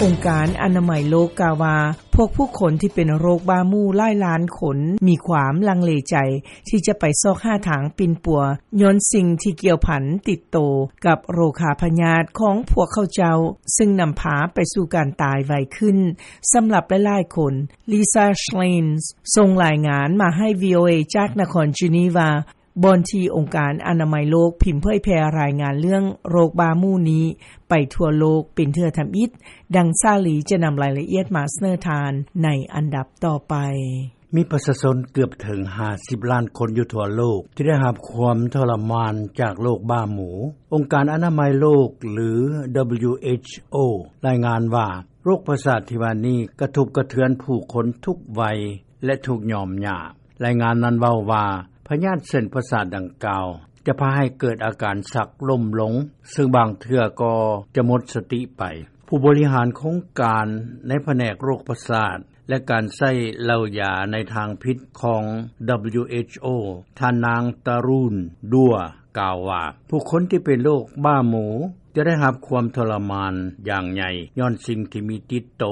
ອົງການອະນາໄມໂລກກ່າວວ່າ ພວກຜູ້ຄົນທີ່ເປັນໂລກບ້າໝູ່ຫຼາຍລ້ານຄົນ ມີຄວາມລັງເລໃຈ ທີ່ຈະໄປຊອກຫາທາງປິ່ນປົວ ຍ້ອນສິ່ງທີ່ກ່ຽວພັນຕິດໂຕ ກັບໂລຄາພະຍາດຂອງພວກເຂົາເຈົ້າ ຊຶ່ງນຳພາໄປສູ່ການຕາຍໄວຂຶ້ນ ສຳລັບຫຼາຍໆຄົນ. Lisa Schlein ສົ່ງລາຍງານມາໃຫ້ VOA ຈາກນະຄອນ Geneva ບ່ອນທີ່ອົງການອະນາໄມໂລກ ພິມເຜີຍແຜ່ລາຍງານເລື່ອງໂລກບ້າໝູ່ນີ້ ໄປທົ່ວໂລກເປັນເທື່ອທຳອິດ. ດັ່ງສາລີຈະນຳລາຍລະອຽດມາສະເໜີທ່ານ ໃນອັນດັບຕໍ່ໄປ. ມີປະຊາຊົນເກືອບເຖິງຫ້າສິບລ້ານຄົນຢູ່ທົ່ວໂລກ ທີ່ໄດ້ຮັບຄວາມທໍລະມານຈາກໂລກບ້າໝູ. ອົງການອະນາໄມໂລກ ຫຼື WHO ລາຍງານວ່າ ໂລກປະສາດທີ່ວ່ານີ້ ກະທົບກະເທືອນຜູ້ຄົນທຸກໄວ ແລະ ທຸກຍອມຍາກ. ລາຍງານນັ້ນເວົ້າວ່າ ພະຍາດເສັ້ນປະສາດດັ່ງກ່າວ ຈະພາໃຫ້ເກີດອາການຊັກລົ້ມລົງ ຊຶ່ງບາງເທື່ອກໍຈະໝົດສະຕິໄປ. ຜູ້ບໍລິຫານໂຄງການໃນພະແນກໂລກປະສາດ ແລະ ການໃຊ້ເຫຼົ້າຢາໃນທາງຜິດຂອງ WHO ທ່ານນາງ Tarun Dua ກ່າວວ່າ ຜູ້ຄົນທີ່ເປັນໂລກບ້າໝູ ຈະໄດ້ຮັບຄວາມທໍລະມານຢ່າງໃຫຍ່ ຍ້ອນສິ່ງທີ່ມີຕິດໂຕ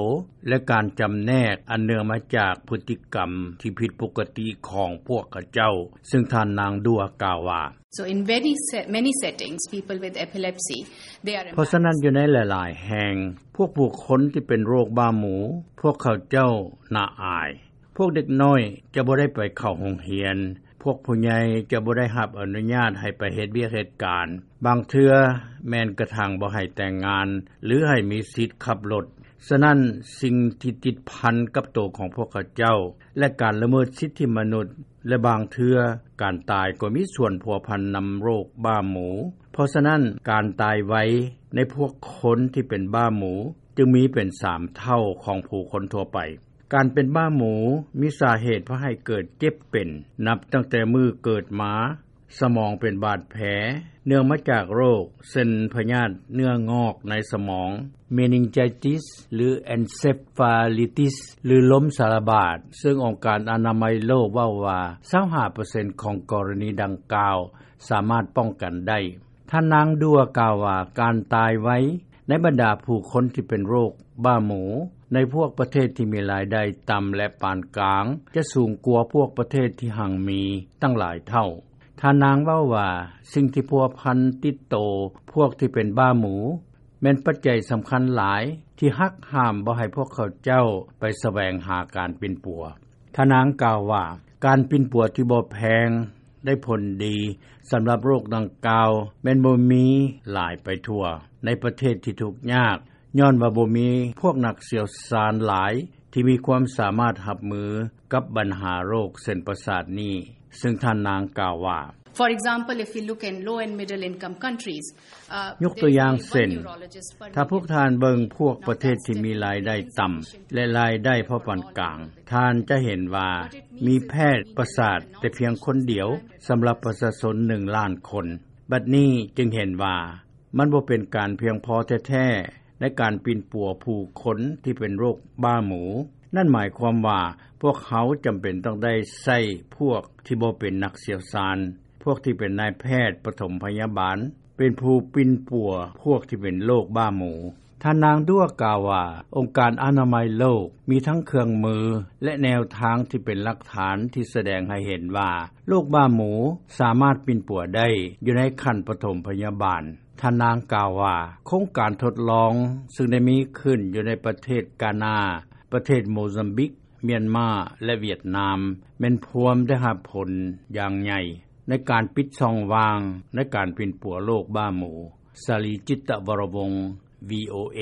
ແລະ ການຈຳແນກອັນເນື່ອງມາຈາກພຶດຕິກຳທີ່ຜິດປົກກະຕິຂອງພວກເຂົາເຈົ້າ, ຊຶ່ງທ່ານນາງ Dua ກ່າວວ່າ So in very se-, many settings, people with epilepsy, they are ເພາະສະນັ້ນ ຢູ່ໃນຫຼາຍໆແຫ່ງ ພວກຜູ້ຄົນທີ່ເປັນໂລກບ້າໝູ ພວກເຂົາເຈົ້າໜ້າອາຍ. ພວກເດັກນ້ອຍຈະບໍ່ໄດ້ໄປເຂົ້າໂຮງຮຽນ, ພວກຜູ້ໃຫຍ່ຈະບໍ່ໄດ້ຮັບອະນຸຍາດໃຫ້ໄປເຮັດວຽກເຮັດການ, ບາງເທື່ອແມ່ນກະທັ້ງບໍ່ໃຫ້ແຕ່ງງານ ຫຼື ໃຫ້ມີສິດຂັບລົດ. ສະນັ້ນ, ສິ່ງທີ່ຕິດພັນກັບໂຕຂອງພວກເຂົາເຈົ້າ ແລະ ການລະເມີດສິດທິມະນຸດ ແລະ ບາງເທື່ອການຕາຍກໍມີສ່ວນພົວພັນນຳໂລກບ້າໝູ. ເພາະສະນັ້ນ, ການຕາຍໄວໃນພວກຄົນທີ່ເປັນບ້າໝູຈຶ່ງມີເປັນສາມເທົ່າຂອງຜູ້ຄົນທົ່ວໄປ. ການເປັນບ້າໝູມີສາເຫດພາໃຫ້ເກີດເຈັບເປັນ ນັບຕັ້ງແຕ່ມື້ເກີດມາ, ສະໝອງເປັນບາດແຜ ເນື່ອງມາຈາກໂລກ ເຊັ່ນ ພະຍາດເນື້ອງອກໃນສະໝອງ, meningitis ຫຼື encephalitis ຫຼື ລົມສາລະບາດ, ຊຶ່ງອົງການອະນາໄມໂລກເວົ້າວ່າ ຊາວຫ້າເປີເຊັນຂອງກໍລະນີດັ່ງກ່າວສາມາດປ້ອງກັນໄດ້. ທ່ານນາງ Dua ກ່າວວ່າ ການຕາຍໄວໃນບັນດາຜູ້ຄົນທີ່ເປັນໂລກບ້າໝູ ໃນພວກປະເທດທີ່ມີລາຍໄດ້ຕ່ຳ ແລະ ປານກາງ ຈະສູງກວ່າພວກປະເທດທີ່ຮັ່ງມີຕັ້ງຫຼາຍເທົ່າ. ທ່ານນາງເວົ້າວ່າ ສິ່ງທີ່ພົວພັນຕິດໂຕພວກທີ່ເປັນບ້າໝູ ແມ່ນປັດໄຈສຳຄັນຫຼາຍທີ່ຫັກຫ້າມບໍ່ໃຫ້ພວກເຂົາເຈົ້າໄປສະແຫວງຫາການປິ່ນປົວ. ທ່ານນາງກ່າວວ່າ ການປິ່ນປົວທີ່ບໍ່ແພງໄດ້ຜົນດີສຳລັບໂລກດັ່ງກ່າວ ແມ່ນບໍ່ມີຫຼາຍໄປທົ່ວໃນປະເທດທີ່ທຸກຍາກ ຍ້ອນວ່າບໍ່ມີພວກນັກຊ່ຽວຊານຫຼາຍທີ່ມີຄວາມສາມາດຮັບມືກັບບັນຫາໂລກເສັ້ນປະສາດນີ້, ຊຶ່ງທ່ານນາງກ່າວວ່າ For example, if we look in low and middle income countries, uh, ຍົກຕົວຢ່າງເຊັ່ນ ຖ້າພວກທ່ານເບິ່ງພວກປະເທດທີ່ມີລາຍໄດ້ຕ່ຳ ແລະ ລາຍໄດ້ພໍປານກາງ, ທ່ານຈະເຫັນວ່າມີແພດປະສາດແຕ່ພຽງຄົນດຽວສຳລັບປະຊາຊົນໜຶ່ງລ້ານຄົນ. ບັດນີ້ຈຶ່ງເຫັນວ່າ ມັນບໍ່ເປັນການພຽງພໍແທ້ໆໃນການປິ່ນປົວຜູ້ຄົນທີ່ເປັນໂລກບ້າໝູ. ນັ້ນໝາຍຄວາມວ່າ ພວກເຮົາຈຳເປັນຕ້ອງໄດ້ໃຊ້ພວກທີ່ບໍ່ເປັນນັກຊ່ຽວຊານ, ພວກທີ່ເປັນນາຍແພດປະຖົມພະຍາບານ ເປັນຜູ້ປິ່ນປົວພວກທີ່ເປັນໂລກບ້າໝູ. ທ່ານນາງ Dua ກ່າວວ່າ ອົງການອະນາໄມໂລກມີທັງເຄື່ອງມື ແລະ ແນວທາງທີ່ເປັນຫຼັກຖານທີ່ສະແດງໃຫ້ເຫັນວ່າ ໂລກບ້າໝູສາມາດປິ່ນປົວໄດ້ຢູ່ໃນຂັ້ນປະຖົມພະຍາບານ. ທ່ານນາງກ່າວວ່າ ໂຄງການທົດລອງຊຶ່ງໄດ້ມີຂຶ້ນຢູ່ໃນປະເທດການາ, ປະເທດໂມຊຳບິກ, ມຽນມາ ແລະ ຫວຽດນາມ ແມ່ນພວມໄດ້ຮັບຜົນຢ່າງໃຫຍ່ໃນການປິດຊ່ອງວ່າງໃນການປິ່ນປົວໂລກບ້າໝູ. ສາລີ ຈິດຕະວໍລະວົງ VOA.